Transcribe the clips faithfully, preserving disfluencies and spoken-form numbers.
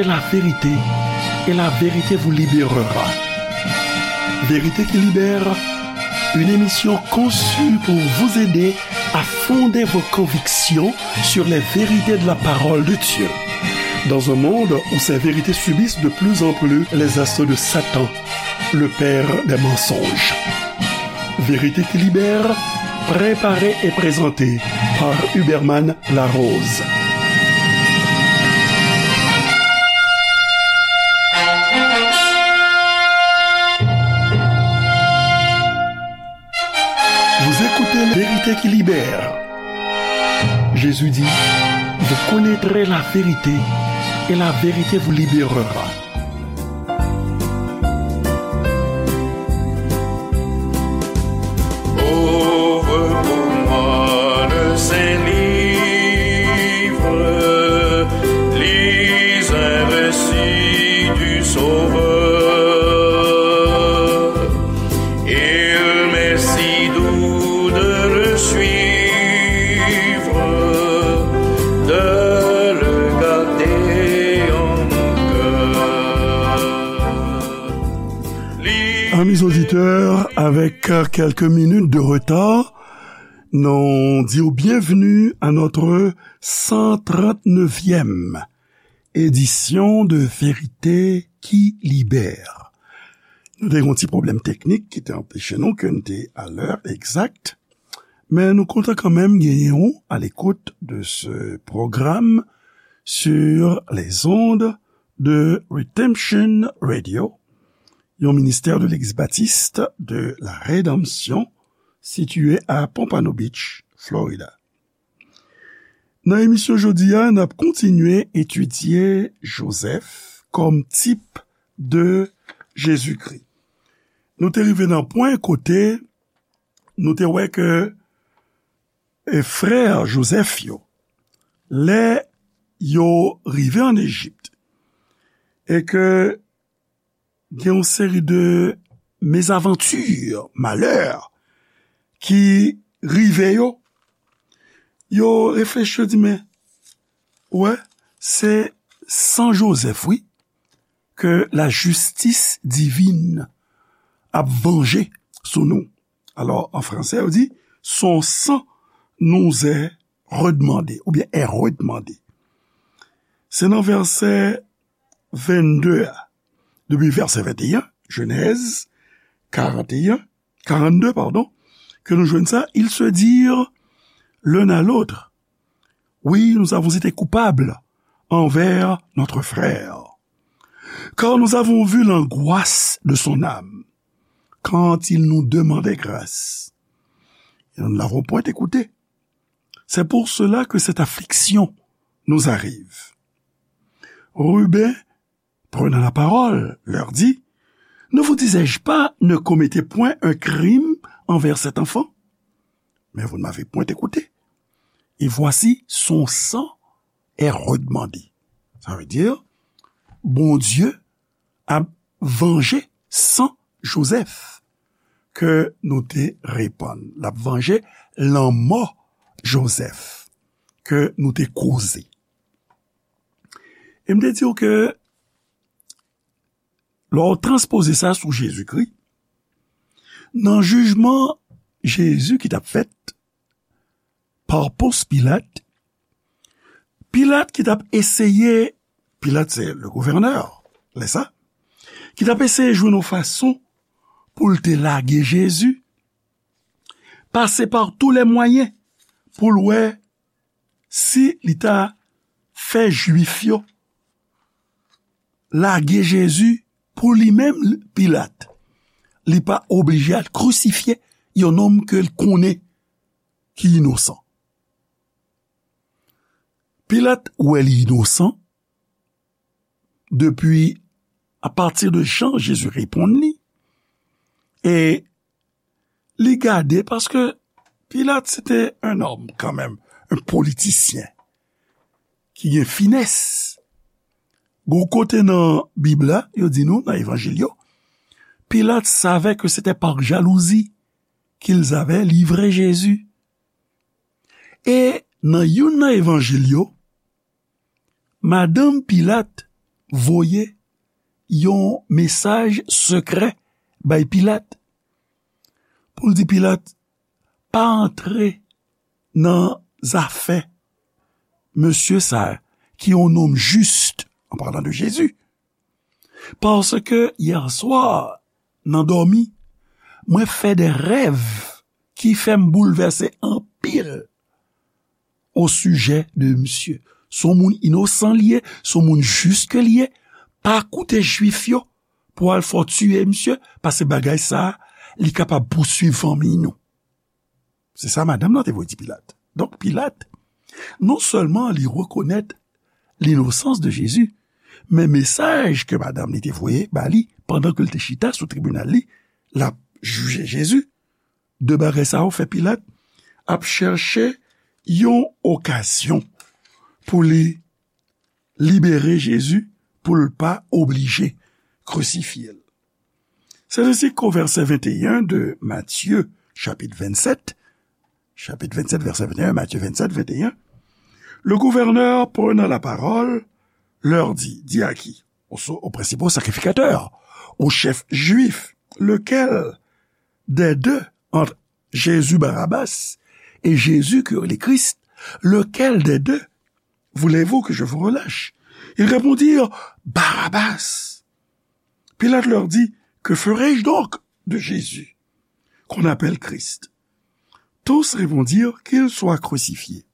La vérité, et la vérité vous libérera. Vérité qui libère, une émission conçue pour vous aider à fonder vos convictions sur les vérités de la parole de Dieu. Dans un monde où ces vérités subissent de plus en plus les assauts de Satan, le père des mensonges. Vérité qui libère, préparé et présenté par Huberman Larose. Vous écoutez La vérité qui libère. Jésus dit, vous connaîtrez la vérité et la vérité vous libérera. Ouvre pour moi le Saint-Livre, lis un récit du Sauveur. Il m'est si doux de le suivre, de le garder en mon cœur. Amis auditeurs, avec, euh, quelques minutes de retard, nous disons bienvenue à notre cent trente-neuvième édition de Vérité qui Libère. Nou te gen yon ti pwoblèm teknik ki te anpeche nou ke n te a lè egzak, men nou kontan kanmenm genyen w à l'écoute de ce programme sur les ondes de Redemption Radio, yon ministè de Legliz Batis de la Redanmsyon, sitiye a Pompano Beach, Florida. Nan emisyon jodi a, n ap kontinye etidye Jozèf kòm tip de Jezikri. Nou te rive nan pwen kote nou te wè ke, e, frè Jozèf yo, lè yo rive ann Ejip, e ke gen yon seri de mezavanti, malè, ki rive yo, yo reflechi, yo di, men, wè, se san Jozèf, wi, ke la justice divine ap vanje sou nou. Alò, an fransè, yo di, son sang nous est redemandé, oubyen est redemandé. Se nan vèsè vennde a, depi vèsè venteyen, Jenèz karanteyen, karannde, padon, ke nou jwenn sa, ils se dirent l'un à l'autre, oui, nous avons été coupables envers notre frère, car nous avons vu l'angoisse de son âme quand il nous demandait grâce, et nous ne l'avons point écouté. C'est pour cela que cette affliction nous arrive. Ruben, prenant la parole, leur dit, ne vous disais-je pas, ne commettez point un crime envers cet enfant? Mais vous ne m'avez point écouté. Et voici, son sang est redemandé. Ça veut dire, Bondye ap vanje san Jozèf ke nou te repann. L ap vanje lanmò Jozèf ke nou te koze. E m te di w ke lè w transpoze sa sou Jezikri, nan jijman Jezi ki t ap fèt pa Pons Pilat, Pilat ki t ap eseye, Pilat se le gouvènè, lè sa, ki t ap eseye jwenn yon fason pou l te lage Jezi, pase pa tou lè mwayen pou l wè si li ta fè Jwif yo lage Jezi pou li menm, Pilat. Li pa oblije al krisifye yon nonm ke l konnen ki inosan. Pilat wè li inosan depi apati de jan Jezi reponn li, e li gade, paske Pilat se te yon nonm kanmenm, yon politisyen ki gen finès. Gon kote nan Bib la, yo di nou, nan Evanjil yo, Pilat savait que c'était par jalousie qu'ils avaient livré Jésus. E nan youn nan Evanjil yo, madanm Pilat voye yon mesaj sekrè bay Pilat pou l di Pilat pa antre nan zafè mesye sa a ki yon nonm jis, an palan de Jezi. Paske yè swa, nan dòmi, mwen fè de rèv ki fè m boulvèse anpil o sijè de misye. Se yon moun inosan li ye, se yon moun jis ke li ye. Pa koute Jwif yo pou al fè w tiye misye, paske bagay sa a, li kapab pouswiv fanmi nou. Se sa madanm nan te voye di Pilat. Donk, Pilat, non sèlman li rekonèt linosans de Jezi, men mesaj ke madanm li te voye ba li pandan ke l te chita sou tribinal li, l ap jije Jezi, de bagay sa yo fè Pilat ap chèche yon okazyon pou li libere Jezi, pou l pa oblije krisifye l. C'est ainsi qu'au verset vingt et un de Matthieu, chapitre vingt-sept, chapitre vingt-sept, verset vingt et un, Matthieu vingt-sept, vingt et un, le gouverneur, prenant la parole, leur dit, dit à qui? Aux, aux principaux sacrificateurs, aux chefs juifs, lequel des deux, entre Jésus Barabbas et Jésus qui est le Christ, lequel des deux voulez-vous que je vous relâche? Ils répondirent, Barabbas. Pilate leur dit, que ferai-je donc de Jésus, qu'on appelle Christ? Tous répondirent, qu'il soit crucifié.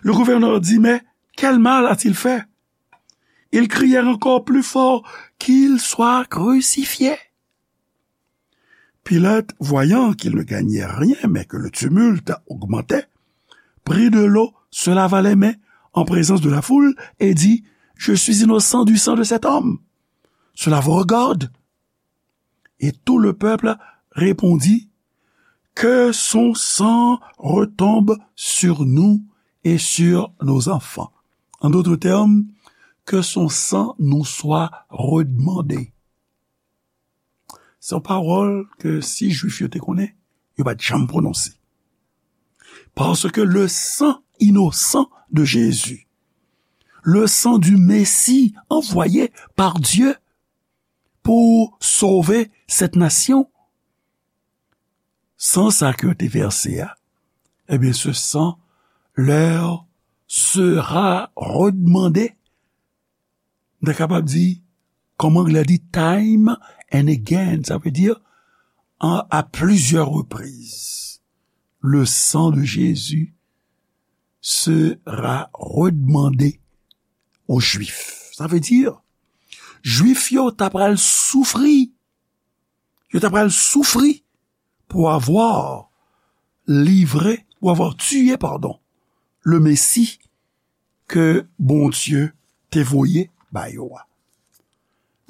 Le gouverneur dit, mais quel mal a-t-il fait? Ils crièrent encore plus fort, qu'il soit crucifié. Pilate, voyant qu'il ne gagnait rien, mais que le tumulte augmentait, prit de l'eau, se lava les mains en présence de la foule et dit, je suis innocent du sang de cet homme. Cela vous regarde? Et tout le peuple répondit, que son sang retombe sur nous et sur nos enfants. En d'autres termes, que son sang nous soit redemandé. Se yon pawòl ke si Jwif yo te konnen, yo pa t janm pwononse. Paske le sang innocent de Jésus, le sang du Messie envoyé par Dieu pour sauver cette nation, san sa ke yo te vèse a, ebyen, ce sang leur sera redemandé. Nou ta kapab di, kòm anglè di, time and again, sa vle di, à plusieurs reprises, le sang de Jésus sera redemandé aux Juifs. Sa vle di, Jwif yo ta pral soufri. Yo ta pral soufri pour avoir livré, pour avoir tué, pardon, le Messie ke Bondye te voye ba yo a.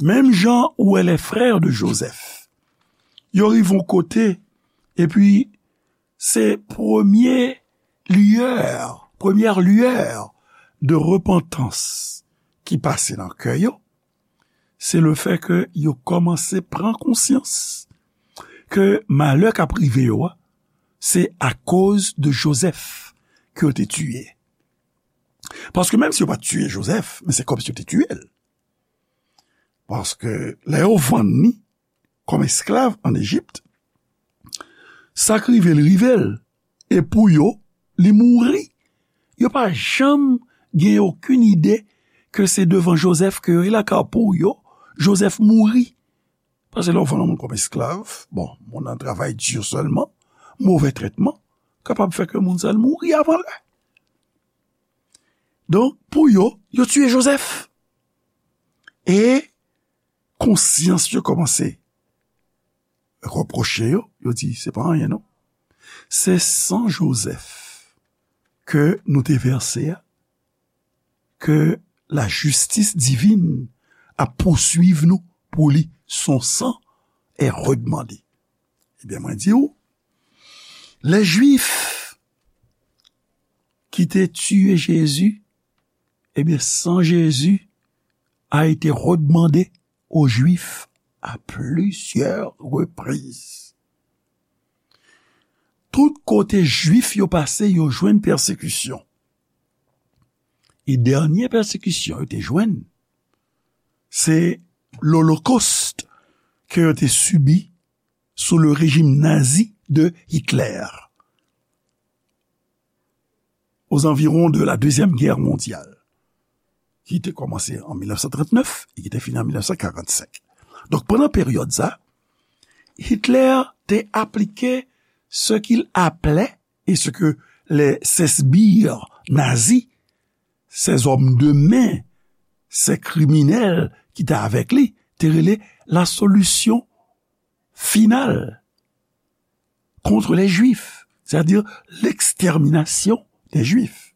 Menm jan ou wè les frères de Joseph, yo rive yon kote, epi se premye lueur, premye lueur de repantans ki pase nan kè yo, se le fè ke yo kòmanse pran konsyans ke malè k ap rive yo a, se akoz de Jozèf ke yo te tiye. Paske menm si yo pa t tiye Jozèf, men se kòmsi yo te tiye l. Paske lè yo vann li kòm esklav ann Ejip, sa k rive l, rive l. E pou yo, li mouri. Yo pa janm gen okenn ide ke se devan Jozèf ke yo ye la, ka pou yo, Jozèf mouri. Paske lè w vann yon moun kòm esklav, bon, moun nan travay di sèlman, movè trètman, kapab fè ke moun sa l mouri avan lè. Donk, pou yo, yo tiye Jozèf. E konsyans yo kòmanse repwoche yo, yo di, se pa anyen non. Se san Jozèf ke nou te vèse a, ke lajistis divin ap pouswiv nou pou li, son sang est redemandé. Ebyen, mwen di w, lè Jwif ki te tiye Jezi, ebyen, san Jezi a été redemandé aux Juifs à plusieurs reprises. Tout kote Jwif yo pase, yo jwenn pèsekisyon. E dènye pèsekisyon yo te jwenn, se lolokost ke yo te sibi sou le rejim nazi de Hitler, aux environs de la Deuxième Guerre mondiale, ki te kòmanse an mil nèf san trant nèf e ki te fini an mil nèf san karant senk. Donk, pandan peryòd sa, Hitler te aplike ce qu'il appelait, et ce que les, ces sbires nazis, ces hommes de main, ces criminels ki te avèk li, te rele la solution finale contre les Juifs, c'est-à-dire l'extermination des Juifs.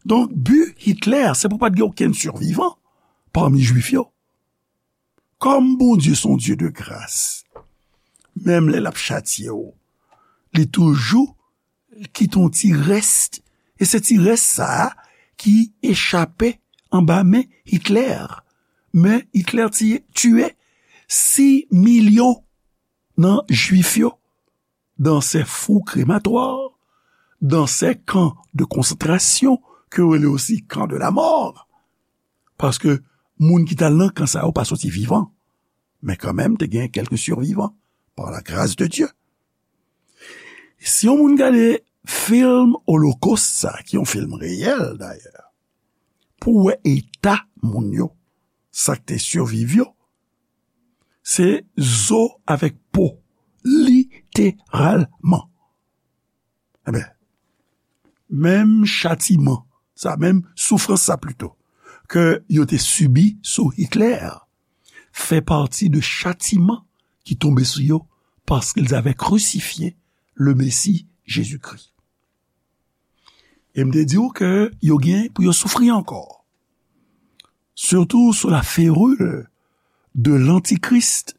Donk, bi Hitler, se pou pa t gen okenn sivivan pami Jwif yo. Kòm Bondye se yon Dye de gras, menm lè l ap chatye w, li toujou kite yon ti rès, e se ti rès sa a ki echape anba men Hitler. Men Hitler tiye, tiye sis milyon nan Jwif yo dans ces fours crématoires, dans ces camps de concentration, ke yo rele osi camps de la mort. Paske moun ki t al nan kan sa yo pa soti vivan. Men kanmenm, te gen kèlke sivivan, par la grâce de Dieu. Si yon moun gade fim Holocaust sa, ki yon fim reyèl dayè, pou wè eta moun yo, sa k te siviv yo, se zo avèk po, literalman. Enben, menm chatiman sa, menm soufrans sa pito, ke yo te sibi sou Hitler, fè pati de chatiman ki tonbe sou yo parce qu'ils avaient crucifié le Messie Jésus-Christ. E m te di w ke yo gen pou yo soufri ankò, surtout sous la férule de l'Antichrist.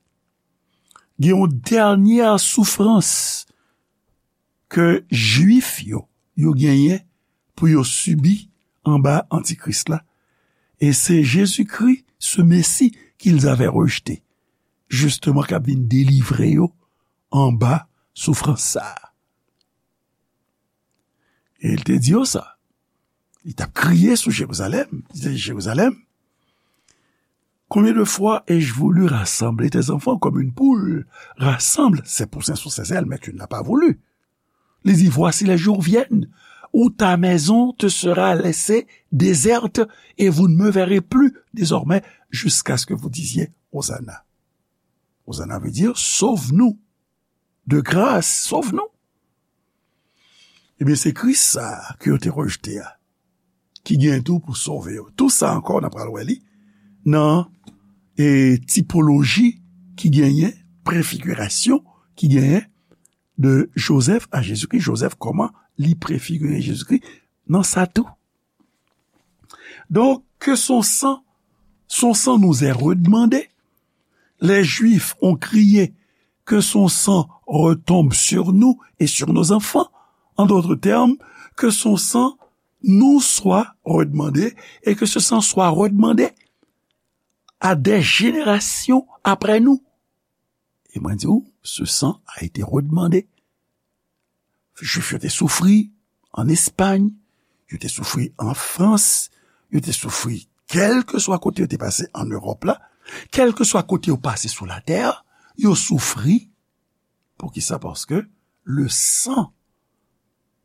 Gen yon dènyè soufrans ke Jwif yo, yo genyen pou yo sibi anba Antikris la. E se Jezikri, ce Messie qu'ils avaient rejeté, justement, k ap vin delivre yo anba soufrans sa a. E l te di yo sa. Li t ap kriye sou Jerizalèm. Li te di, Jerizalèm, combien de fois ai-je voulu rassembler tes enfants comme une poule rassemble ses poussins sous ses ailes, mais tu ne l'as pas voulu. Li di, voici, les jours viennent où ta maison te sera laissée déserte et vous ne me verrez plus désormais jusqu'à ce que vous disiez, Hosanna. Hosanna veut dire, sauve-nous. De grâce, sauve-nous. Ebyen, se Kris sa a ke yo te rejte a, ki gen tou pou sove yo. Tou sa ankò, n ap pral wè li nan, e, tipoloji ki genyen, prefigirasyon ki genyen de Joseph à Jésus-Christ. Joseph, kòman li prefigire Jezikri nan sa tou. Donc, que son sang, son sang nous est redemandé. Les Juifs ont crié, que son sang retombe sur nous et sur nos enfants. En d'autres termes, que son sang nous soit redemandé et que ce sang soit redemandé à des générations après nous. E mwen di w, ce sang a été redemandé. Jwif yo te soufri an Espay, yo te soufri an Frans, yo te soufri kèlkeswa kote yo te pase an Ewòp la, kèlkeswa kote yo pase sou latè, yo soufri. Poukisa? Paske le sang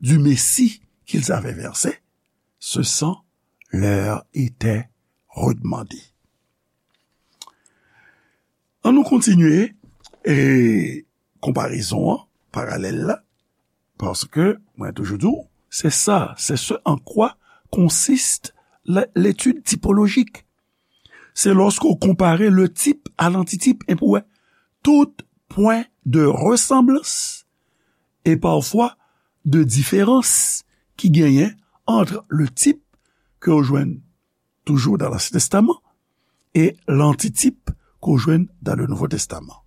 du Messie qu'ils avaient versé, ce sang leur était redemandé. Ann nou kontinye, e, konparezon an, paralèl la, paske mwen toujou di w, c'est ça, c'est ce en quoi consiste la, l'étude typologique. C'est lorsqu'on compare le type à l'antitype, e pou wè tout point de ressemblance et parfois de différence ki genyen entre le type ke w jwenn toujours dans l'Ancien Testament et l'antitype qu'on joint dans le Nouveau Testament.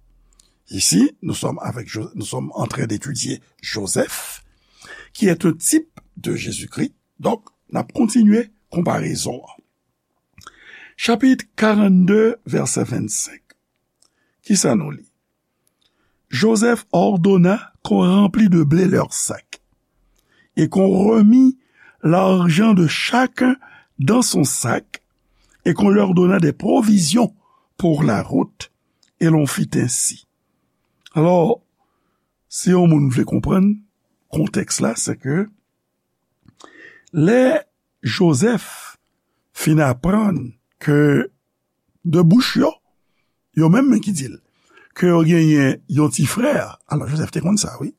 Ici, nous sommes avec Jo-, nous sommes en train d'étudier Joseph, qui est un type de Jésus-Christ. Donc, n ap kontinye konparezon an. Chapitre quarante-deux, verset vingt-cinq. Kisa nou li? Joseph ordonna qu'on remplît de blé leurs sacs et qu'on remît l'argent de chacun dans son sac, et qu'on leur donna des provisions pour la route, et l'on fit ainsi. Alò, si yon moun vle konprann kontèks la, se ke lè Jozèf fin aprann ke de bouch yo, yo menm ki di l, ke yo genyen yon ti frè. Alò, Jozèf te konn sa, wi.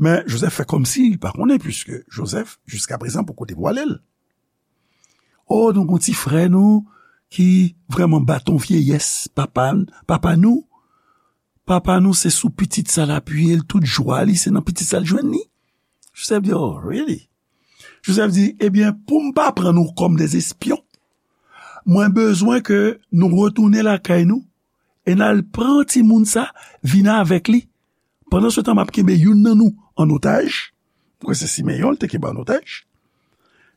Men Jozèf fè kòmsi li pa konnen, piske Jozèf, jiska prezan, poko devwale l. O, nou gon ti frè nou ki vrèman baton vyeyès papa, papa nou. Papa nou se sou pitit sa l apiye l, tout jwa li se nan pitit sa l jwenn li. Jozèf di, "Oh, really?" Jozèf di, "Ebyen, pou m pa pran nou kòm de espyon, mwen bezwen ke nou retounen lakay nou e n al pran timoun sa, vin avèk li. Pandan se tan, m ap kenbe youn nan nou an otaj." Mwen se Simeyon, l te kenbe an otaj.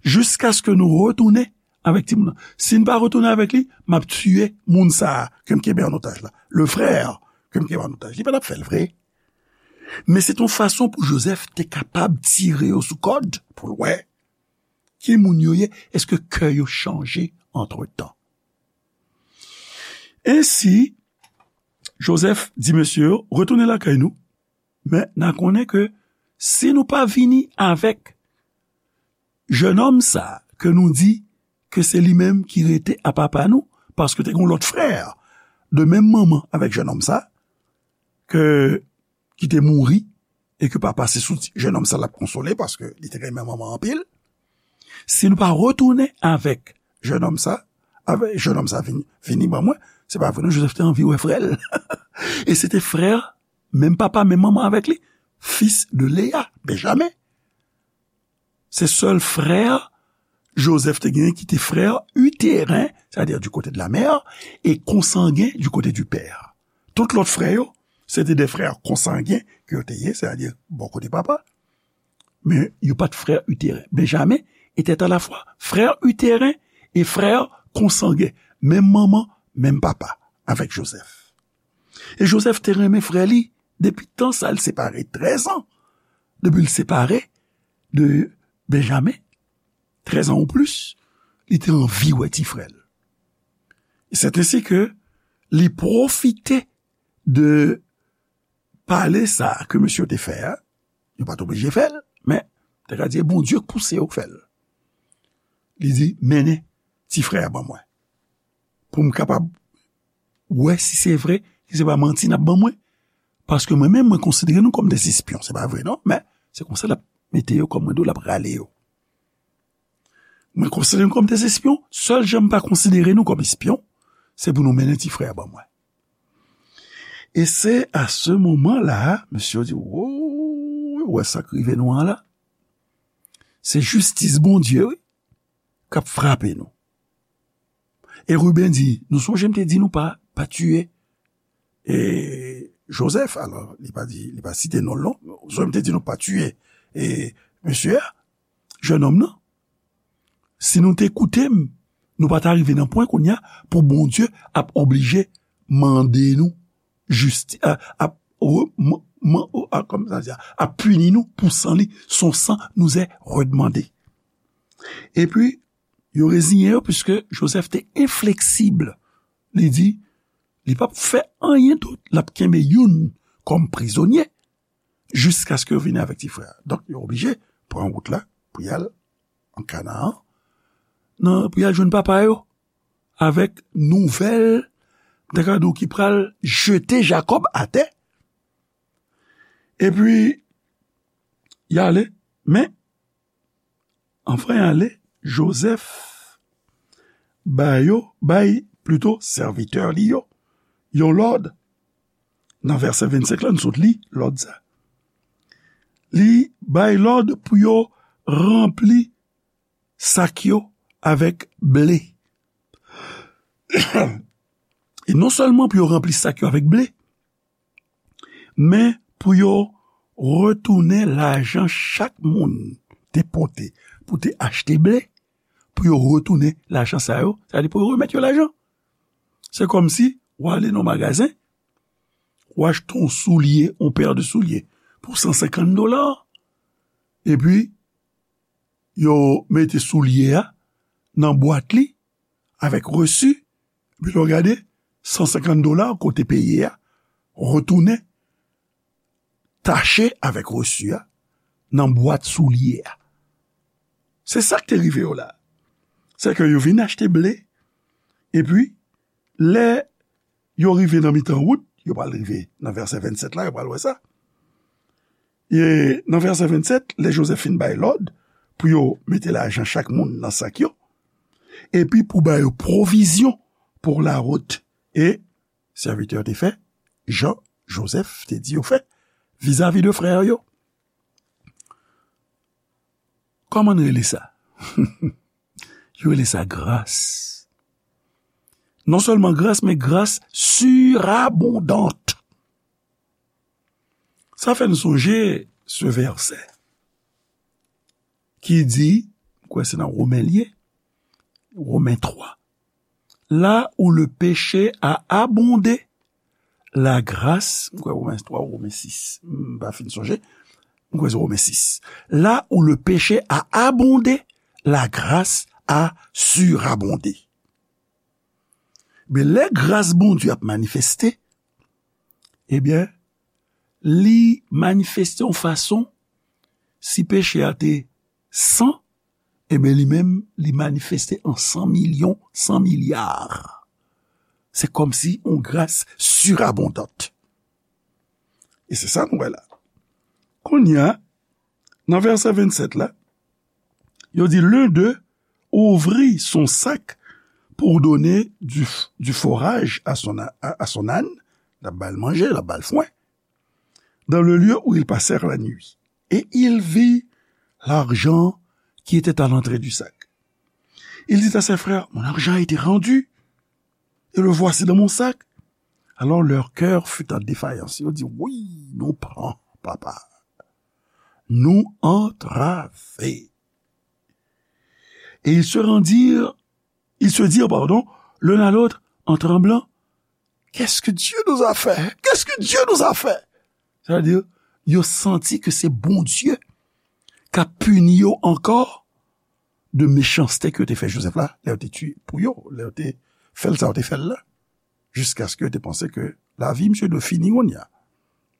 "Jiskaske nou retounen avèk timoun nan. Si n pa retounen avèk li, m ap tiye moun sa a ke m kenbe an otaj la. Le frère ke m kenbe an otaj." Li pa t ap fè l vre. Men se t yon fason pou Jozèf te kapab tire yo sou kòd, pou l wè ki moun yo ye, èske kè yo chanje antretan. Ensi, Jozèf di mesye yo, "Retounen lakay nou, men n a konnen ke si nou pa vini avèk jennonm sa ke nou di ke se li menm ki rete a papa nou, paske te gen yon lòt frè de menm manman avèk jennonm sa, ke, ki te mouri, e ke papa se sou ti, jennonm sa l ap konsole, paske li te renmen manman anpil. Si nou pa retounen avèk jennonm sa, avèk jennonm sa vini, vini ban mwen, se pa vre non, Jozèf te anvi wè frè l." E se te frè, menm papa, menm manman avèk li, fils de Léa, Benjamen. Se sèl frè Jozèf te genyen ki te frè utérin, c'est-à-dire du côté de la mère, e konsangen du côté du père. Tout lòt frè yo, se te de frè konsangen ke yo te ye, c'est-à-dire bò kote papa. Men yo pa t frè utérin. Benjamen était à la fois frère utérin et frère consanguin, menm manman, menm papa, avèk Jozèf. E Jozèf te renmen frè li depi tan sa, l separe trèz an. Depi l separe de Benjamen, trèz an ou plis, li te anvi wè ti frè l. E c'est ainsi que li pwofite de pale sa ke mesye yo te fè a, yo pa t oblije fè l, men te ka di, e Bondye k pouse yo fè l. Li di, "Mennen ti frè a ban mwen, pou m kapab wè si se vre, si se pa manti n ap ban mwen. Paske mwen menm, mwen konsidere nou kòm de espyon." Se pa vre non, men se konsa l ap mete yo, kòm mwen di w, l ap rale yo. "Mwen konsidere nou kòm de espyon, sèl jan m pa konsidere nou kòm espyon, se pou nou mennen ti frè a ban mwen." E se a se moman la, mesye yo di, "Wo, wè sa k rive nou an la? Se jistis Bondye, wi, k ap frape nou." E Riben di, "Nou sonje m te di nou pa, pa tiye, e, Jozèf?" Alò, li pa di, li pa site non l non. "Nou sonje m te di nou pa tiye, e, mesye a, jennonm nan? Si nou te koute m, nou pa ta rive nan pwen kounye a pou Bondye ap oblije mande nou jisti-, a, ap, re-, man-, man-, a, kòman sa di a, ap pini nou pou san li, son sang nous est redemandé." Epi, yo reziyen yo, piske Jozèf te enfleksib. Li di, li p ap fè anyen dout, l ap kenbe youn kòm prizonye, jiskaske yo vini avèk ti frè a. Donk, yo oblije pran wout la pou y al an Kanaan, nan, pou y al jwenn papa yo, avèk nouvèl, m ta ka di w, ki pral jete Jakòb atè. Epi, y ale, men, anvan y ale, Jozèf ba yo, bay, plito, sèvitè li yo, yon lòd. Nan vèsè vennsenk la, nou sot li lòd sa. Li bay lòd pou yo ranpli sak yo avèk ble. E non sèlman pou yo ranpli sak yo avèk ble, men pou yo retounen lajan chak moun te pote pou te achte ble, pou yo retounen lajan sa yo, sa vle di pou yo remèt yo lajan. Se kòmsi w ale nan magazen, w achte yon soulye, yon pè de soulye pou san senkant dola, epi yo mete soulye a nan bwat li, avèk resi, epi lè w gade, san senkant dola ke w te peye a retounen tache avèk resi a nan bwat soulye a. Se sa k te rive yo la. Se ke yo vin achte ble, epi lè yo rive nan mitan wout, yo pral rive nan vèsè vennsèt la, yo pral wè sa. E nan vèsè vennsèt, lè Jozèf fin bay lòd pou yo mete lajan chak moun nan sak yo, epi pou ba yo pwovizyon pou lawout, e sèvitè yo te fè jan Jozèf te di yo fè vizavi de frè yo. Kòman n rele sa? Yo rele sa gras. Non sèlman gras, men gras surabondante. Sa fè n sonje se vèsè ki di, m kwè se nan Women l ye, Women twa, là où le péché a abondé, la grâce, m kwè Women twa ou Women sis, m pa fin sonje, m kwè se Women sis. Là où le péché a abondé, la grâce a surabondé. Men lè gras Bondye ap manifeste, ebyen, li manifeste yon fason, si peche a te san, ebyen, li menm, li manifeste an san milyon, san milya. Se kòmsi yon gras surabondante. E se sa nou wè la. Kounye a, nan vèsè vennsèt la, yo di, l'un d'eux ouvrit son sac pour donner du, du fourrage à son, à, à son âne, l ap ba l manje, l ap ba l fwen, dans le lieu où ils passèrent la nuit. Et il vit l'argent qui était à l'entrée du sac. Il dit à ses frères, mon argent a été rendu, et le voici dans mon sac. Alors leur cœur fut en défaillance. Yo di, wi, nou pran, papa. Nou antrave. Et ils se rendirent, ils se dirent, pardon, l'un à l'autre, en tremblant, qu'est-ce que Dieu nous a fait? Qu'est-ce que Dieu nous a fait? Sa vle di, yo santi ke se Bondye k ap pini yo ankò de mechanste ke yo te fè Jozèf la, lè yo te tiye pou yo, lè yo te fè l sa yo te fè l la. Jiskaske yo te panse ke lavi misye dwe fini kounye a.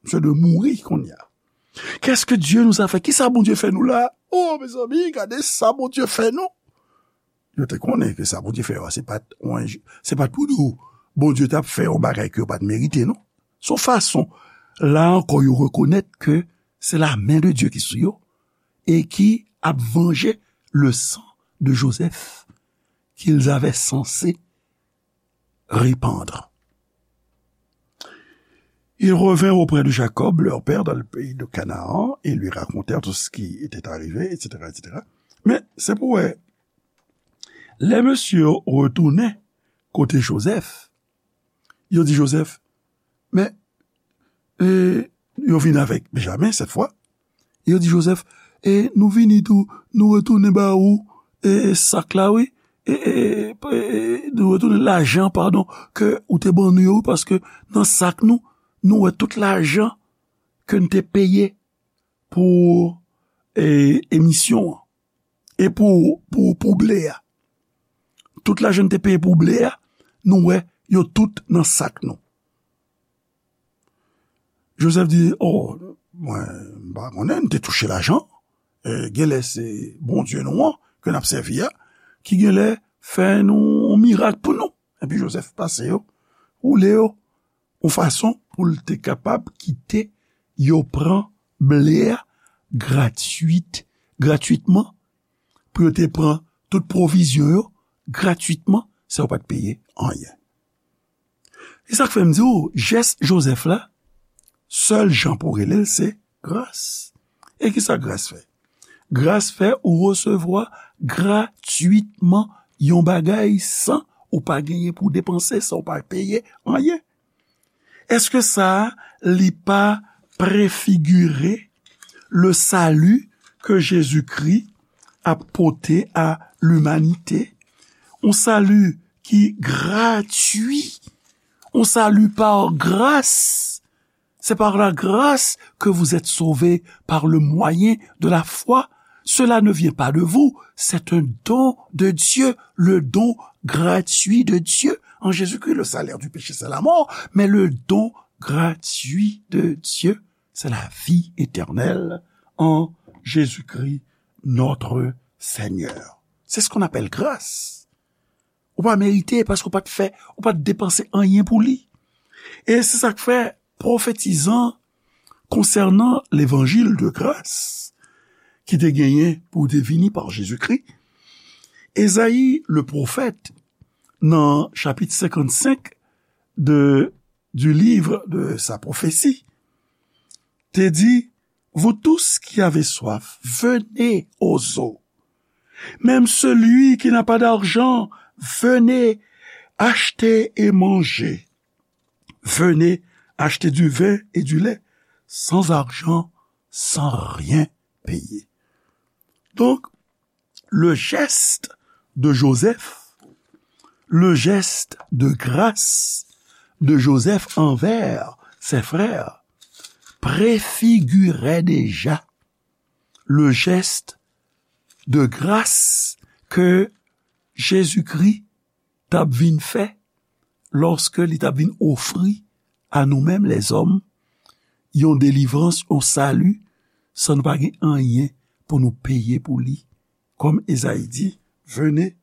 Misye dwe mouri kounye a. Qu'est-ce que Dieu nous a fait? Kisa Bondye fè nou la? Oh, mezanmi, gade sa Bondye fè nou. Yo te konnen ke sa Bondye fè yo a, se pa t yon enj-, se pa t pou di w Bondye t ap fè yon bagay ke yo pa t merite, non. Se yon fason, la ankò, yo rekonèt ke se la men de Dye ki sou yo e ki ap vanje le sang de Joseph qu'ils avaient censé répandre. Ils revinrent auprès de Jacob, leur père, dans le pays de Canaan, et lui racontèrent tout ce qui était arrivé, et cetera, et cetera. Men, se pou wè, lè mesye yo retounen kote Jozèf, yo di Jozèf, men, e, yo vin avèk Benjamen, sèt fwa, yo di Jozèf, e nou vini tou, nou retounen ba ou, e, e, sak la, wi, e, e, e, nou retounen lajan, padon, ke ou te ban nou yo, paske nan sak nou, nou wè tout lajan ke n te peye pou, e, emisyon an, e pou, pou, pou ble a. Tout lajan n te peye pou ble a, nou wè yo tout nan sak nou. Jozèf di, o, mwen, m pa konnen, n te touche lajan. E, genlè se Bondye nou an, ke n ap sèvi a, ki genlè fè nou yon mirak pou nou. Epi Jozèf pase yo, woule yo, yon fason pou l te kapab kite yo pran ble a gratwit, gratwitman, pou yo te pran tout pwovizyon yo gratwitman, san yo pa t peye anyen. E sa k fè m di w, jès Jozèf la, sèl jan pou w rele l, se gras. E kisa gras fè? Gras fè ou resevwa gratwitman yon bagay san ou pa genyen pou w depanse, san ou pa peye anyen. Èske sa a, li pa prefigire le salut que Jésus-Christ ap pote a limanite? Un salut ki gratwi, un salut par grâce. C'est par la grâce que vous êtes sauvés par le moyen de la foi. Cela ne vient pas de vous, c'est un don de Dieu, le don gratuit de Dieu en Jésus-Christ. Le salaire du péché, c'est la mort, mais le don gratuit de Dieu, c'est la vie éternelle en Jésus-Christ, notre Seigneur. C'est ce qu'on appelle grâce. Ou pa merite paske ou pa t fè, ou pa t depanse anyen pou li. E se sa k fè pwofetizan konsènan levanjil de gras ki te genyen pou te vini pa Jezikri, Ezayi le pwofèt, nan chapit senkannsenk de, du livre de sa prophétie, te di, vous tous qui avez soif, venez aux eaux. Même celui qui n'a pas d'argent, venez acheter et manger. Venez acheter du vin et du lait, sans argent, sans rien payer. Donc, le geste de Joseph, le geste de grâce de Joseph envers ses frères préfigurait déjà le geste de grâce ke Jezikri t ap vin fè lòske li t ap vin ofri a nou menm lèzòm yon delivrans, yon sali, san nou pa gen anyen pou nou peye pou li. Kòm Ezayi di, venez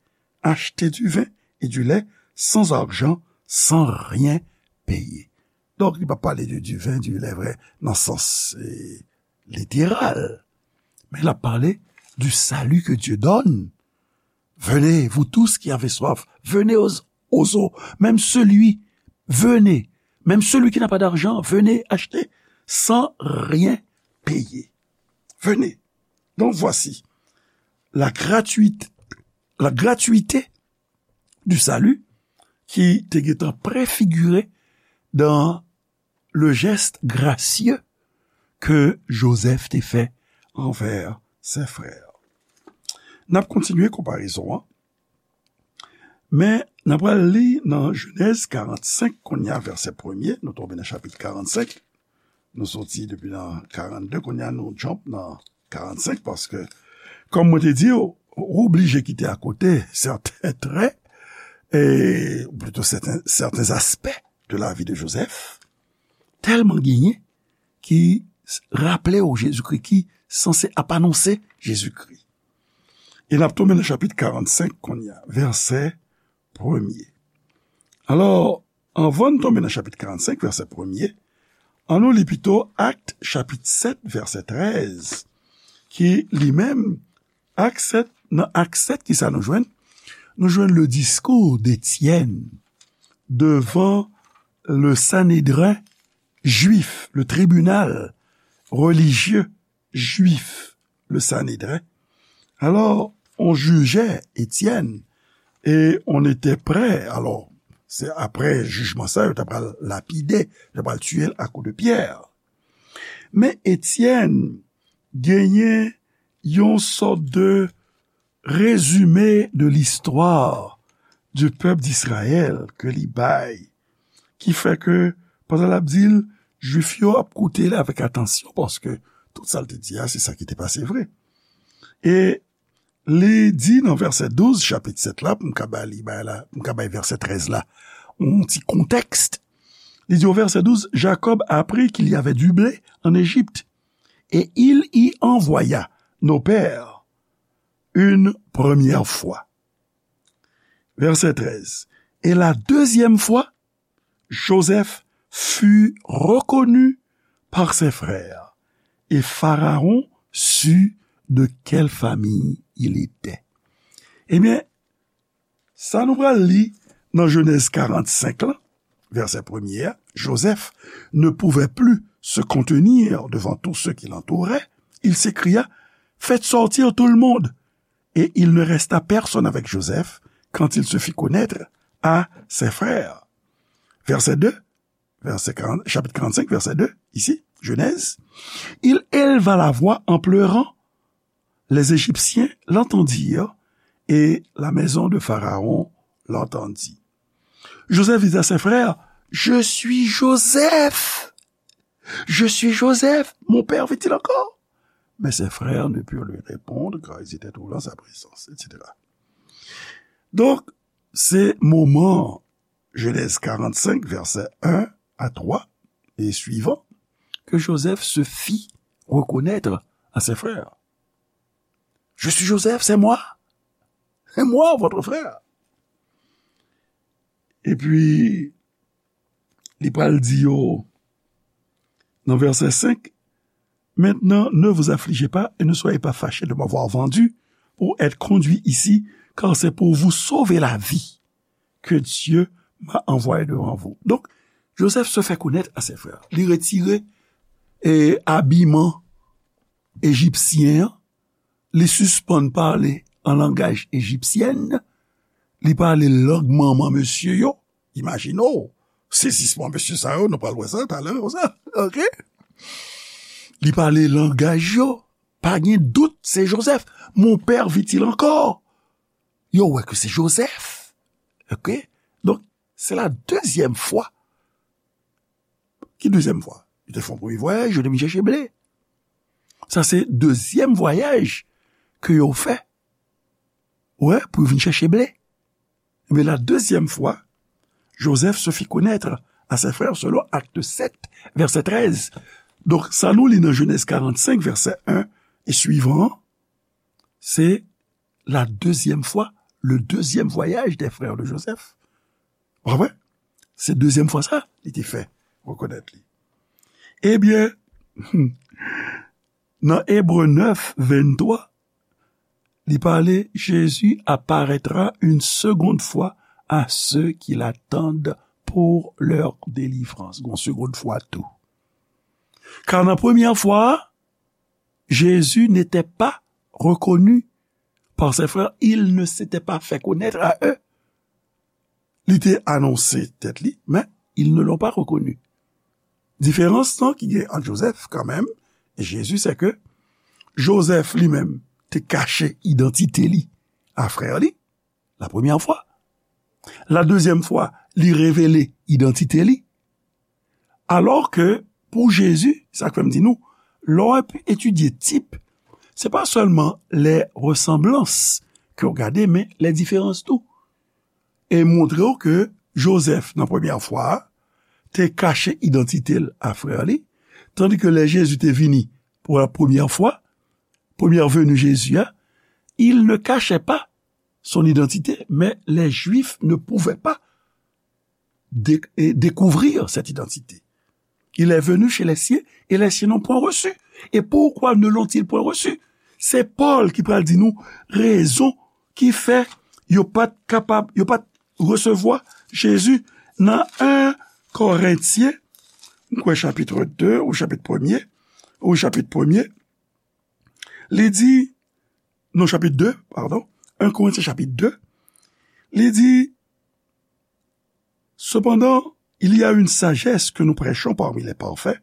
acheter du vin et du lait sans argent, sans rien payer. Donk, li pa pale de du vin, du lait vre, nan sans eh, literal. Men l ap pale du salut que Dieu donne. Venez, vous tous qui avez soif, venez aux, aux eaux. Même celui, venez. Même celui qui n'a pas d'argent, venez acheter sans rien payer. Venez. Donc voici la gratuité, la gratuité du salut ki te gentan prefigire dans le geste gracieux que Joseph te fè envè ses frères. N ap kontinye konparezon an, men n ap pral li nan Jenèz karannsenk, kounye a vèsè premye, nou tonbe nan chapit karannsenk, nou soti depi nan karannde, kounye a nou jump nan karannsenk, paske, kòm mwen te di w, ou oblije kite akote sèten trè, e, ou plito sèten, sèten aspè de la vi de Joseph, tèlman genyen ki raple w Jezikri, ki sanse ap anonse Jezikri. E n ap tonbe nan chapit karannsenk kounye a, vèsè premye. Alò, anvan n tonbe nan chapit karannsenk, vèsè premye, ann nou li pito Ak chapit sèt, vèsè trèz, ki li menm, Ak sèt, nan Ak sèt, kisa nou jwenn? Nou jwenn le discours d'Étienne devant le Sanhédrin juif, le tribunal religieux juif, le Sanhédrin. Alò, on jije Etyèn, e on ete prè, alò, se apre jijman sa, yo ta pral lapide, yo ta pral tiye l a kou de pyè. Men Etyèn genyen yon sòt de rezime de listwa du pèp d'Izrayèl ke li bay, ki fè ke, pandan l ap di l, Jwif yo ap koute l avèk atansyon, paske tout sa l te di a, se sa ki te pase vre. E li di nan vèsè douz, chapit sèt la, pou m ka ba li, bay la, pou m ka bay vèsè trèz la, yon ti kontèks. Li di o vèsè douz, Jacob apprit qu'il y avait du blé en Égypte, et il y envoya nos pères une première fois. Verset treize. Et la deuxième fois, Joseph fut reconnu par ses frères, et Pharaon sut de quelle famille il était. Ebyen, sa nou pral li nan Jenèz karannsenk la, vèsè premye a, Joseph ne pouvait plus se contenir devant tous ceux qui l'entouraient. Il s'écria, faites sortir tout le monde. Et il ne resta personne avec Joseph quand il se fit connaître à ses frères. Verset deux, verset quarante, chapitre quarante-cinq, verset deux, ici, Genèse. Il éleva la voix en pleurant. Les Égyptiens l'entendirent et la maison de Pharaon l'entendit. Joseph dit à ses frères, je suis Joseph. Je suis Joseph, mon père vit-il encore? Mais ses frères ne purent lui répondre, car ils étaient trouvés en sa présence, et cetera. Donk, Se moman, Genèse quarante-cinq, verset un à trois et suivant, que Joseph se fit reconnaître à ses frères. Je suis Joseph, c'est moi. C'est moi, votre frère. Epi, li pral di yo nan vèsè senk, Maintenant, ne vous affligez pas et ne soyez pas fâchés de m'avoir vendu pour être conduit ici, car c'est pour vous sauver la vie que Dieu m'a envoyé devant vous. Donk, Joseph se fait connaître à ses frères. Li retire e, abiman ejipsyen an, li sispann pale an langaj ejipsyèn, li pale lang manman mesye yo. Imajine w, sezisman mesye sa yo, nou pral wè sa talè konsa, oke? Li pale langaj yo, pa gen dout, se Joseph. Mon père vit-il encore? Yo wè ke se Joseph, oke? Donk, se la dezyèm fwa. Ki dezyèm fwa? Yo te fè yon premye vwayaj, yo te vin chèche ble. Sa se dezyèm vwayaj ke yo fè. Wè, pou yo vin chèche ble. Ebyen, la dezyèm fwa, Joseph se fit connaître à ses frères selon Acte sept, verset treize. Donk, sa nou li nan Genèse quarante-cinq, verset un et suivant, se la dezyèm fwa, le deuxième voyage des frères de Joseph. Ou konprann? Se dezyèm fwa sa, li te fè rekonèt li. Ebyen, nan Ebre nèf, venntwa, li pale, Jésus apparaîtra une seconde fois à ceux qui l'attendent pour leur délivrance. Gon segonn fwa tou. Car nan premyè fwa, Jésus n'était pas reconnu par ses frères, il ne s'était pas fait connaître à eux. Li te anonse tèt li, men ils ne l'ont pas reconnu. Diferans lan ki gen ant Joseph kanmenm e Jezi, se ke Joseph li menm te kache idantite li a frè li, la premyè fwa. La dezyèm fwa, li revele idantite li. Alò ke pou Jezi, sa k fè m di nou, lè w ap etidye tip, se pa sèlman les ressemblances ke w gade, men les différences tou. E montre w ke Joseph, nan premyè fwa a, te kache idantite l a frè li, tandi ke lè Jezi te vini pou la premyè fwa, première venue Jésus a, il ne cachait pas son identité, mais les Juifs ne pouvaient pas dé- et découvrir cette identité. Il est venu chez les siens et les siens n'ont point reçu. Et pourquoi ne l'ont-ils point reçu? Se Pòl ki pral di nou rezon ki fè yo pa t kapab, yo pa t resevwa Jezi nan en Korentyen, m kwè chapit de ou chapit premye, ou chapit premye, li di, non, chapit de, pardon, en Korentyen chapit de, li di, Cependant, il y a une sagesse que nous prêchons parmi les parfaits,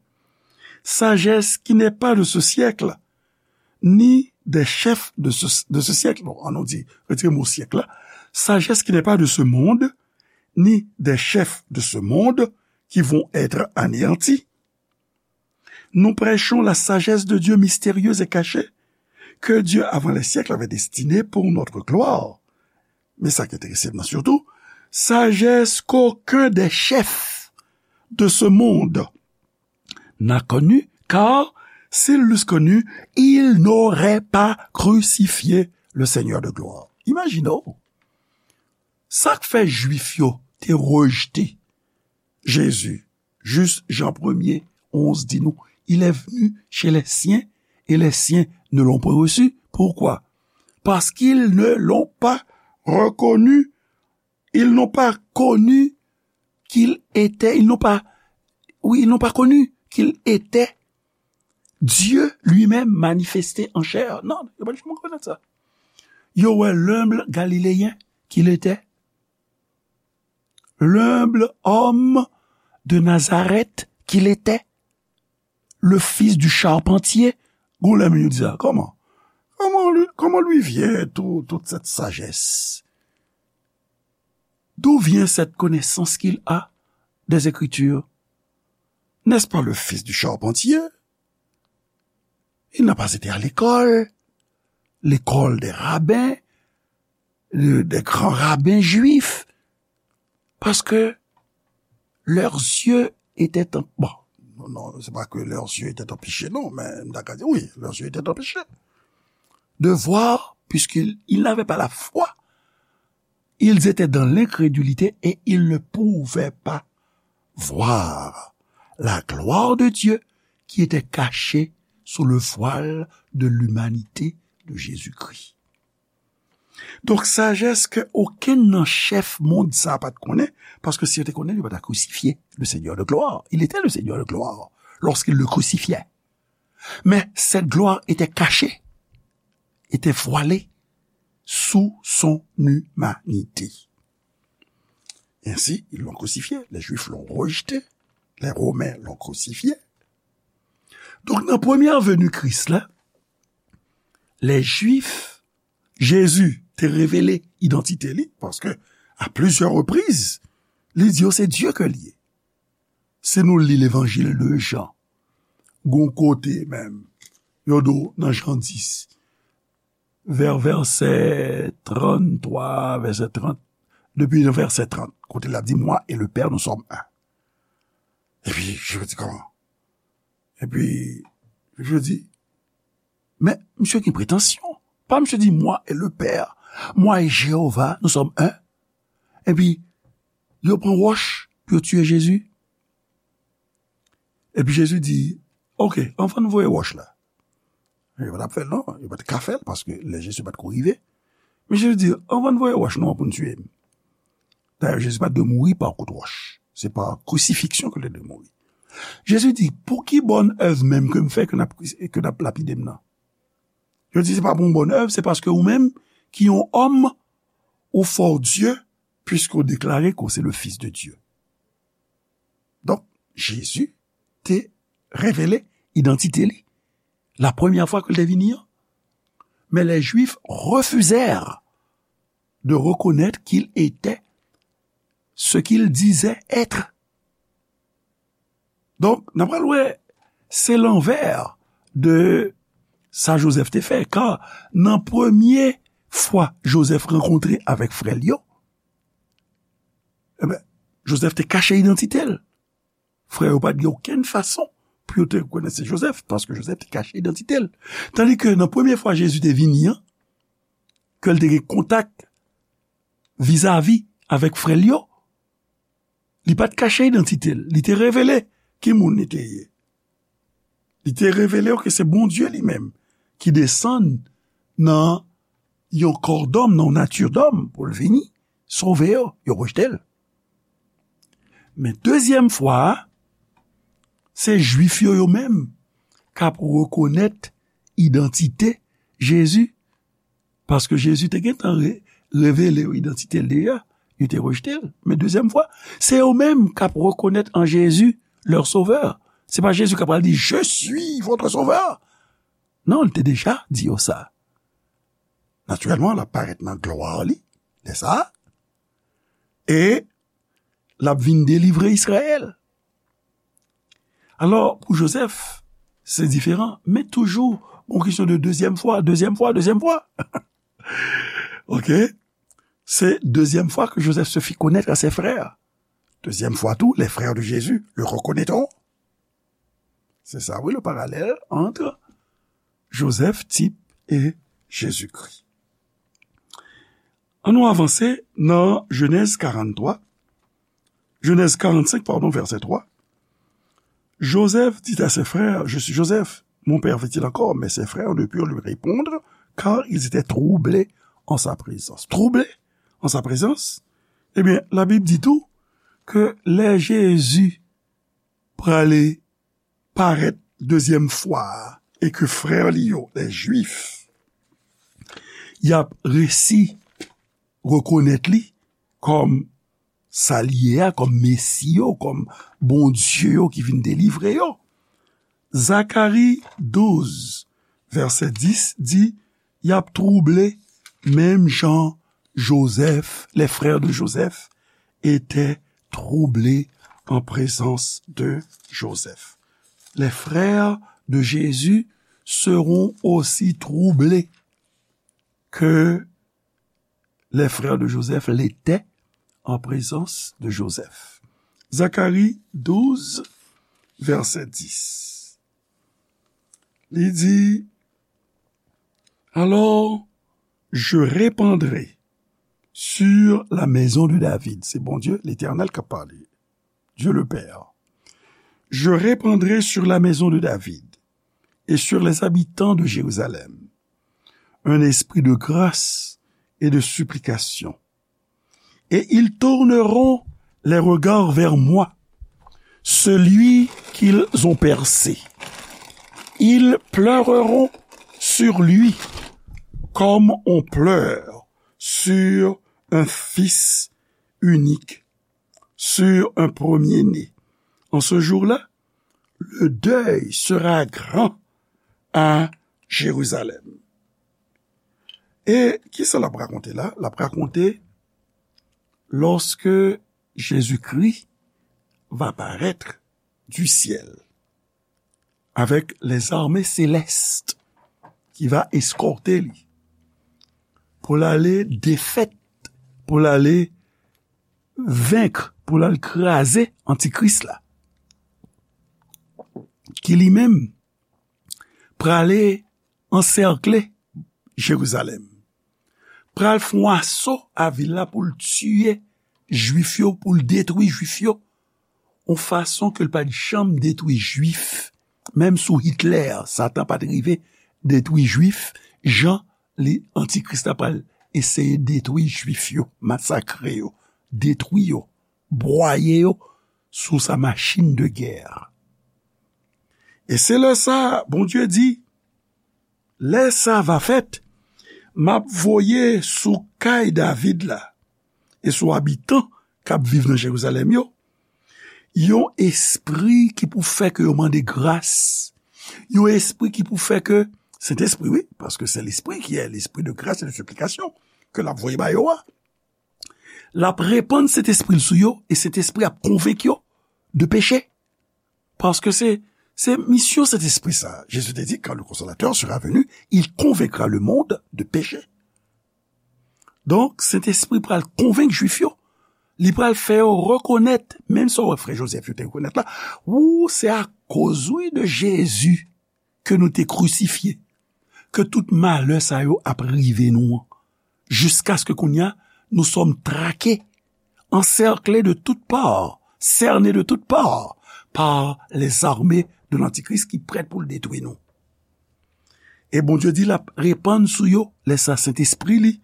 sagesse qui n'est pas de ce siècle, ni des chefs de ce, de ce siècle. Non, an nou di, retire mo syèk la. Sagesse qui n'est pas de ce monde, ni des chefs de ce monde qui vont être anéantis. Nous prêchons la sagesse de Dieu mystérieuse et cachée, que Dieu avant les siècles avait destinée pour notre gloire. Men sa ki enterese m nan sitou, sagesse qu'aucun des chefs de ce monde n'a connue, car s'ils l'eussent connue, ils n'auraient pas crucifié le Seigneur de gloire. Imajine w, sa k fè Jwif yo te rejte Jezi, jis Jan premye, onz di nou, il est venu chez les siens et les siens ne l'ont point reçu. Pourquoi? Parce qu'ils ne l'ont pas reconnu. Ils n'ont pas connu qu'il était, ils n'ont pas, oui, ils n'ont pas connu qu'il était Dieu lui-même manifesté en chair. Non, yo pa t janm rekonèt sa. Yo wè l'humble Galiléen qu'il était. L'humble homme de Nazareth qu'il était, le fils du charpentier. Gon lè moun yo di sa, kòman? Comment lui, comment lui vient tout, toute cette sagesse? D'où vient cette connaissance qu'il a des Écritures? N'est-ce pas le fils du charpentier? Il n'a pas été à l'école, l'école des rabbins, de, de gran raben jwif, paske leurs yeux étaient en-, bon, non, non, c'est pas que leurs yeux étaient empêchés, non, mais, d'accord, oui, leurs yeux étaient empêchés de voir, puisqu'ils, ils n'avaient pas la foi. Ils étaient dans l'incrédulité et ils ne pouvaient pas voir la gloire de Dieu qui était cachée sous le voile de l'humanité de Jésus-Christ. Donk, sajès ke okenn nan chèf mond sa a pa t konnen, paske si yo te konnen, yo pa ta krusifye le Seigneur de gloire. Il était le Seigneur de gloire lorsqu'ils le crucifiaient. Mais cette gloire était cachée, était voilée sous son humanité. Ainsi, ils l'ont crucifié. Les Juifs l'ont rejeté. Les Romains l'ont crucifié. Donk, nan premyè veni Kris la, les Juifs, Jezi te revele idantite li, paske a plizyè repriz, li di yo se Dye ke li ye. Si nou li Levanjil de Jan, gon kote menm, yo di w nan Jan dis, vè vèsè tranntwa, vèsè trant, depi nan vèsè trant, kote l ap di, Moi et le Père, nous sommes un. Epi, je me dis, comment? Epi, je dis, men, misye gen pretansyon. Pa misye di, Moi et le Père, moi et Jéhovah, nous sommes un. Epi, yo pran wòch pou yo tiye Jezi. Epi Jezi di, Ok, anvan n voye wòch la. Yo pa t ap fè l, non. Yo pa t ka fè l, paske lè Jezi pa t ko rive. Men Jezi di, Anvan n voye wòch nou an pou n tiye m. Dayè, Jezi pa t dwe mouri pa kout wòch. Se pa krisifiksyon ke l te dwe mouri. Jezi di, Pou ki bòn èv menm ke m fè ke n ap, ke n ap lapide m nan? Yo di, Se pa pou yon bòn èv, se paske ou menm, ki yon òm, ou fè w Dye, puiske w deklare ke w se le Fils de Dieu. Donk, Jezi te revele idantite li. La première fois ke l te vini an. Mais les Juifs refusèrent de reconnaître qu'il était ce qu'il disait être. Donk, n ap pral wè, se lanvè de sa Jozèf te fè. Ka nan premye fwa Jozèf rankontre avèk frè l yo, ebyen, Jozèf te kache idantite l. Frè yo pa t gen okenn fason pou yo te rekonèt se Jozèf, paske Jozèf te kache idantite l. Tandike nan premye fwa Jezi te vini an, ke l te gen kontak vizavi avèk frè l yo, li pa t kache idantite l, li te revele ki moun li te ye. Li te revele yo ke se Bondye li menm ki desann nan yon kò dòm, nan yon nati dòm pou l vini sove yo, yo rejte l. Men dezyèm fwa a, se Jwif yo, yo menm k ap rekonèt idantite Jezi, paske Jezi te gentan re-, revele yo idantite l deja, yo te rejte l. Men dezyèm fwa, se yo menm k ap rekonèt an Jezi leur sauveur. Se pa Jezi k ap pral di, Je suis votre sauveur. Non, li te deja di yo sa. Natirèlman, l ap parèt nan glwa li, lè sa a, e l ap vin delivre Izrayèl. Alò, pou Jozèf, se diferan, men toujou, gon kesyon de dezyèm fwa, dezyèm fwa, dezyèm fwa. Oke? Se dezyèm fwa ke Joseph se fit connaître à ses frères. Deuxième fois tout, les frères de Jésus le reconnaîtront. C'est ça, oui, le parallèle entre Joseph, type, et Jésus-Christ. Ann nou avanse nan Jenèz karant-twa, Jenèz karant-senk, pardon, vèsè twa. Joseph dit à ses frères, Je suis Joseph, mon père vit-il encore? Mais ses frères ne purent lui répondre, car ils étaient troublés en sa présence. Troublés en sa présence? Ebyen, Labib di tou ke lè Jezi prale parèt dezyèm fwa a, e ke frè li yo, lè Jwif, y ap resi rekonèt li kòm sa li ye a, kòm Mesi yo, kòm Bondye yo ki vin delivre yo. Zakari douz, vèsè dis di, y ap twouble menm jan Jozèf, les frères de Joseph étaient troublés en présence de Joseph. Les frères de Jésus seront aussi troublés que les frères de Joseph l'étaient en présence de Joseph. Zacharie douze, verset dix. Li di, alors, je répandrai sur la maison de David. Se Bondye, Letènèl k ap pale. Dieu le Père. Je répandrai sur la maison de David et sur les habitants de Jérusalem un esprit de grâce et de supplication. Et ils tourneront les regards vers moi, celui qu'ils ont percé. Ils pleureront sur lui comme on pleure sur un fils unique, sur un premier-né. En ce jour-là, le deuil sera grand à Jérusalem. E kisa l ap rakonte la? L ap rakonte lorsque Jésus-Christ va paraître du ciel avec les armées célestes qui va escorter lui pour l ale défaite, pour l ale vaincre, pour l al kraze antikris la, ki li menm prale ansèkle Jerizalèm, pral fè yon aso a vil la pou l tiye Jwif yo, pou l detwi Jwif yo, yon fason ke l pa t janm detwi Jwif. Menm sou Hitler, Satan pa t rive detwi Jwif jan li, Antikris la pral eseye detwi Jwif yo, masakre yo, detwi yo, bwaye yo sou sa machin de gè. E se lè sa, Bondye di, lè sa va fèt, m ap voye sou kay David la e sou abitan k ap viv nan Jerizalèm yo, yon espri ki pou fè ke yo mande gras, yon espri ki pou fè ke, Sentespri, wi, paske se lespri ki è lespri de gras e de siplikasyon ke l ap voye ba yo a. L ap repann Sentespri l sou yo, e Sentespri ap konvenk yo de peche. Paske se, se misyon Sentespri sa. Jezi te di, quand le Consolateur sera venu, il convaincra le monde de péché. Donk, Sentespri pral konvenk Jwif yo. Li pral fè yo rekonèt, menm sa w wè frè Jozèf yo te rekonèt la, ou se akoz, wi, de Jezi ke nou te krisifye, ke tout malè sa yo ap rive nou an, jiskaske kounye a, nous sommes traqués, encerclés de toutes parts, cernés de toutes parts par les armées de l'Antichrist ki prèt pou l detwi nou. E Bondye di l ap repann sou yo, lè sa, Sentespri li,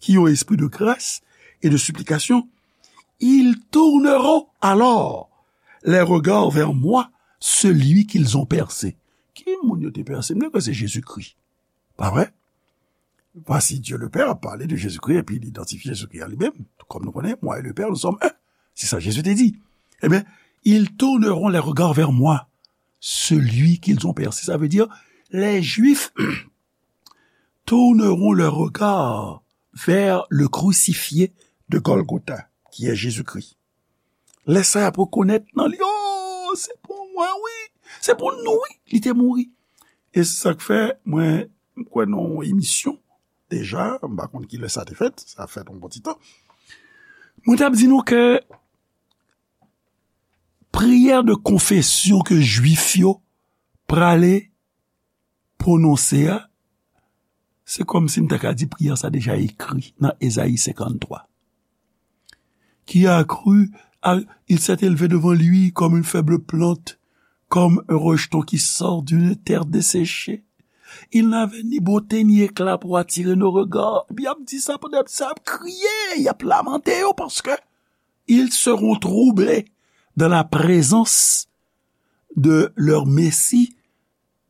ki yon espri de gras e de siplikasyon, ils tourneront alors les regards vers moi, celui qu'ils ont percé. Ki moun yo te pèse? M kwè se Jezikri. Pa vre? Voici Dieu le Père a parlé de Jésus-Christ, epi li idantifye Jezikri a li menm. Kòm nou konnen, moi et le Père, nous sommes un. Se sa Jezi te di. Ebyen, ils tourneront les regards vers moi, celui qu'ils ont percé. Ça veut dire, les Juifs tourneront leurs regards vers le crucifié de Golgotha, qui est Jésus-Christ. Lè sa y ap rekonèt nan li, oh, se pou mwen, wi. Se pou nou, wi. Li te mouri. E se sa k fè, mwen, m kwè nan yon emisyon deja, m pa konn ki lè sa te fèt, sa fèt yon bon ti tan. Mwen t ap di nou ke priyè de konfesyon ke Jwif yo prale pwononse a, se kòmsi m ta ka di priyè sa deja ekri nan Ezayi senkanntwa. Qui a cru, a, il s'est élevé devant lui comme une faible plante, comme un rejeton qui sort d'une terre desséchée. Il n'avait ni beauté ni éclat pour attirer nos regards. Epi y ap di sa pandan y ap, sa ap kriye, y ap lamante yo, paske ils seront troublés dans la présence de leur Messie,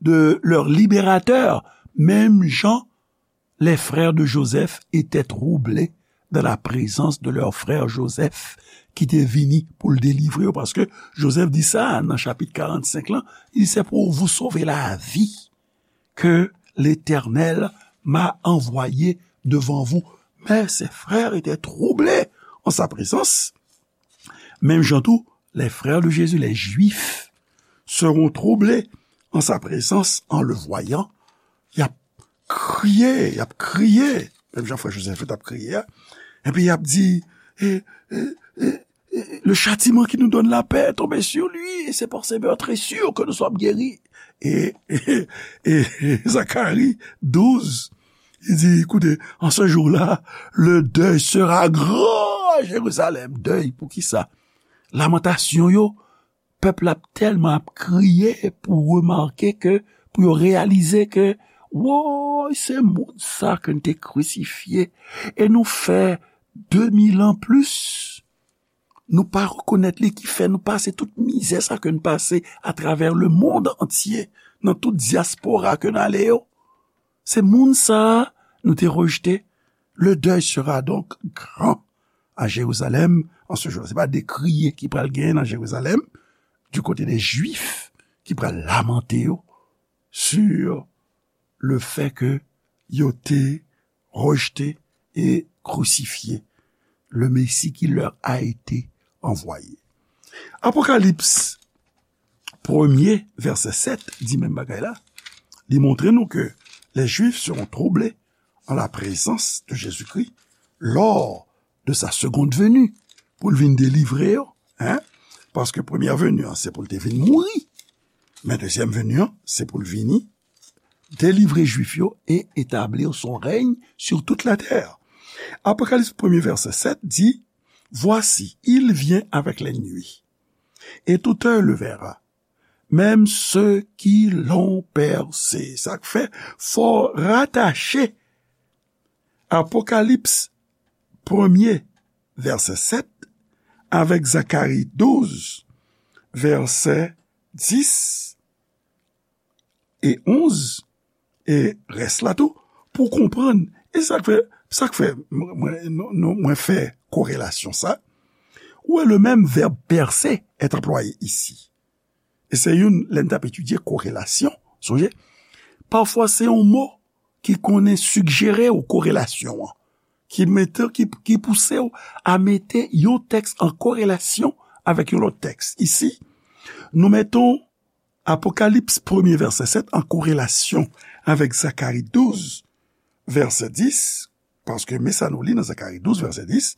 de leur libérateur, menm jan les frères de Joseph étaient troublés dans la présence de leur frère Joseph, ki te vini pou l delivre yo, paske Joseph di sa nan chapit karannsenk lan, il c'est pour vous sauver la vie que l'Éternel m'a envoyé devant vous. Mais ses frères étaient troublés en sa présence. Menm jan tou, les frères de Jésus, les Juifs, seront troublés en sa présence, en le voyant. Y ap kriye, y ap kriye. Menm jan frè Jozèf yo t ap kriye a. Epi y ap di, e, e, e, e, le châtiment qui nous donne la paix est tombé sur lui, et c'est par ses meurtrissures que nous sommes guéris. E, e, e, e Zakari douz, li di, écoutez, en ce jour-là, le deuil sera grand à Jérusalem. Dèy, poukisa? Lamantasyon yo, pèp la ap tèlman ap kriye pou remake ke, pou yo reyalize ke, woy, se moun sa ke n te krisifye, e nou fè de mil an plis, nou pa rekonèt li, ki fè nou pase tout mizè sa ke n pase atravè le monde entier, nan tout dyaspora ke n ale yo. Se moun sa a nou te rejte. Le deuil sera donc grand à Jérusalem en ce jour. Se pa de kriye ki pral genyen nan Jerizalèm, du côté des Juifs, ki pral lamante yo sur le fait que yo te rejte e krisifye le Messie qui leur a été envoyé. Apokalips premye, vèsè sèt, di menm bagay la. Li montre nou ke les Juifs seront troublés en la présence de Jésus-Christ lors de sa seconde venue, pou l vin delivre yo, hein? Paske premyè veni an, se pou l te vin mouri. Men dezyèm veni an, se pou l vini delivre Jwif yo e etablir son règne sur toute la terre. Apokalips premye, vèsè sèt di, Voici, il vient avec les nuées, et tout œil le verra, même ceux qui l'ont percé. Sa k fè, fò w ratache Apokalips premye, vèsè sèt, avèk Zakari douz, vèsè dis e onz, e rès la tou, pou w konprann. E sa k fè, sa k fè mwen, mwen, nou, nou, mwen fè korelasyon sa. Ou wè, le menm vèb pèse est employé ici. E se youn, lè n t ap etidye korelasyon, sonje, pafwa se yon mo ki konnen sigjere w korelasyon an, ki mete, ki, ki pouse w a mete yon tèks an korelasyon avèk yon lòt tèks. Isi, nou meton Apokalips premye vèsè sèt an korelasyon avèk Zakari douz, vèsè dis, paske men sa nou li nan Zakari douz, vèsè dis,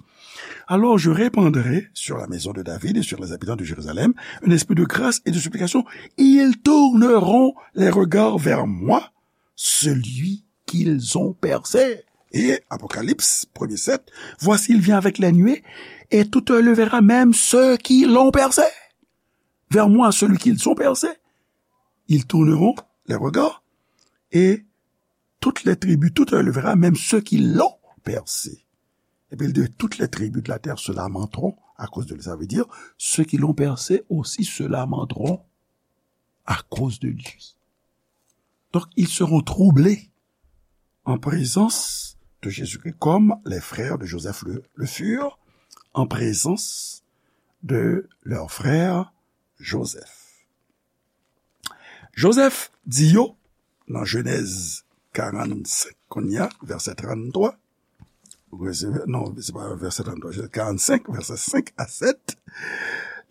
Alors je répandrai sur la maison de David et sur les habitants de Jérusalem un esprit de grâce et de supplication. Ils tourneront les regards vers moi, celui qu'ils ont percé. Et Apocalypse premier sept, Voici, il vient avec les nuées, et tout œil le verra, même ceux qui l'ont percé. Vers moi, celui qu'ils ont percé. Ils tourneront les regards, et toutes les tribus, tout œil le verra, même ceux qui l'ont percé. Et puis il dit, toutes les tribus de la terre se lamenteront à cause de lui. Ça veut dire, ceux qui l'ont percé aussi se lamenteront à cause de lui. Donc, ils seront troublés en présence de Jésus-Christ, comme les frères de Joseph le, le furent en présence de leur frère Joseph. Joseph di yo, nan Jenèz karannsenk, kounye a, vèsè tranntwa, non, se pa vèsè tranntwa, Jenèz karannsenk, vèsè senk a sèt,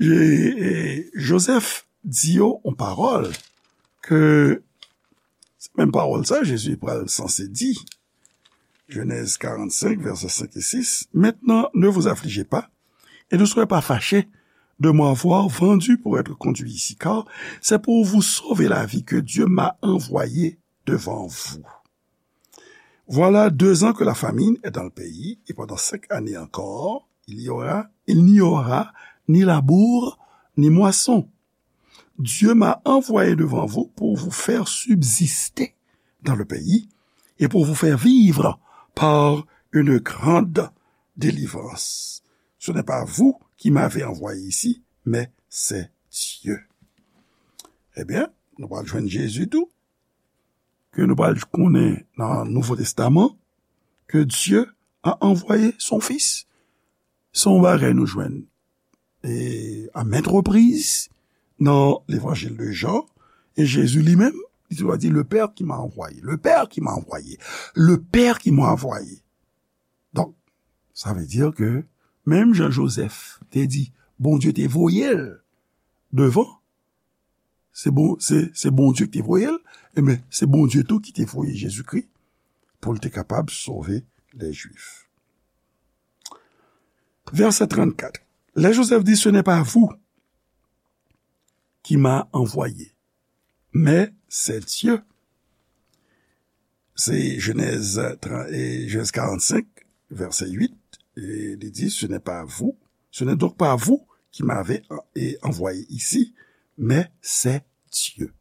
e, e, Joseph di yo yon pawòl ke, se menm pawòl sa, Jezi pral sanse di. Genèse quarante-cinq, versets cinq et six. Maintenant, ne vous affligez pas et ne soyez pas fâchés de m'avoir vendu pour être conduit ici, car c'est pour vous sauver la vie que Dieu m'a envoyé devant vous. Voilà deux ans que la famine est dans le pays, et pendant cinq années encore, il y aura, il n'y aura ni labour, ni moisson. Dieu m'a envoyé devant vous pour vous faire subsister dans le pays et pour vous faire vivre par une grande délivrance. Ce n'est pas vous qui m'avez envoyé ici, mais c'est Dieu. Ebyen, nou pral jwenn Jezi tou, ke nou pral konnen nan Nouvo Testaman, que Dieu a envoyé son Fils. Se yon bagay nou jwenn e, à maintes reprises dans l'évangile de Jean, e Jezi li menm, li te di, le Père qui m'a envoyé, le Père qui m'a envoyé, le Père qui m'a envoyé. Donk, sa vle di ke menm jan Joseph te di, Bondye te voye l devan, se bon, se, se Bondye ki te voye l, ebyen, se Bondye tou ki te voye Jezikri pou l te kapab sove lè Jwif. Verset trente-quatre. Là, Joseph dit, ce n'est pas vous qui m'a envoyé, mais c'est Dieu. C'est Genèse trente, et Genèse quarante-cinq, verset huit. Et il dit, ce n'est pas vous, ce n'est donc pas vous qui m'avez en- et envoyé ici, mais c'est Dieu.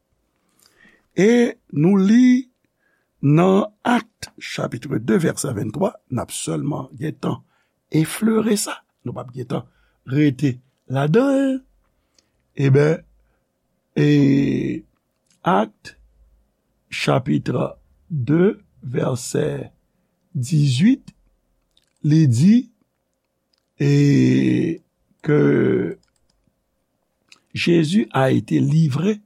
E nou li nan Actes chapitre deux, verset vingt-trois, n ap sèlman gentan eflere sa, nou p ap gentan rete ladan l. Eben, e Actes chapitre deux, verset dix-huit, li di, et que Jésus a été livré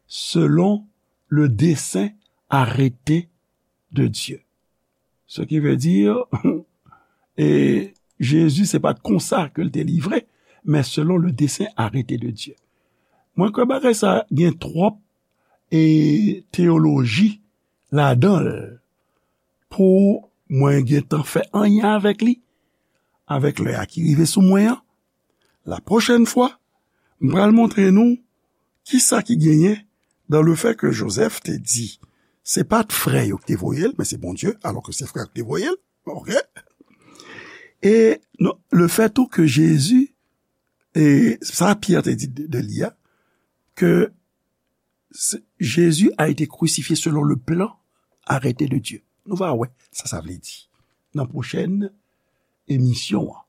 selon le dessein arrêté de Dieu. Ce qui veut dire, e Jezi, se pa t konsa ke l te livre, men selon le dessein arrêté de Dieu. Mwen kwè bagay sa gen twòp e teyoloji ladan l pou mwen gentan fè anyen avèk li, avèk lè a ki rive sou mwen an. La pwochèn fwa, m pral montre nou kisa ki genyen dan le fè ke Jozèf te di se pa t frè yo ki te voye l, men se Bondye, alò ke se frè yo ki te voye l. Oke? E non, le fè tou ke Jezi, e sa Pyè te di de, de li a, ke se- Jésus a été crucifié selon le plan arrêté de Dieu. Nou va wè sa sa vle di nan pwochèn emisyon an.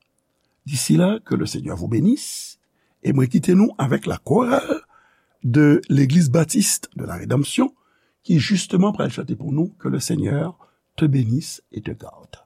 D'ici là, que le Seigneur vous bénisse. E mwen kite nou avèk la chorale de l'Église Baptiste de la Rédemption ki justement pral chante pou nou Que le Seigneur te bénisse et te garde.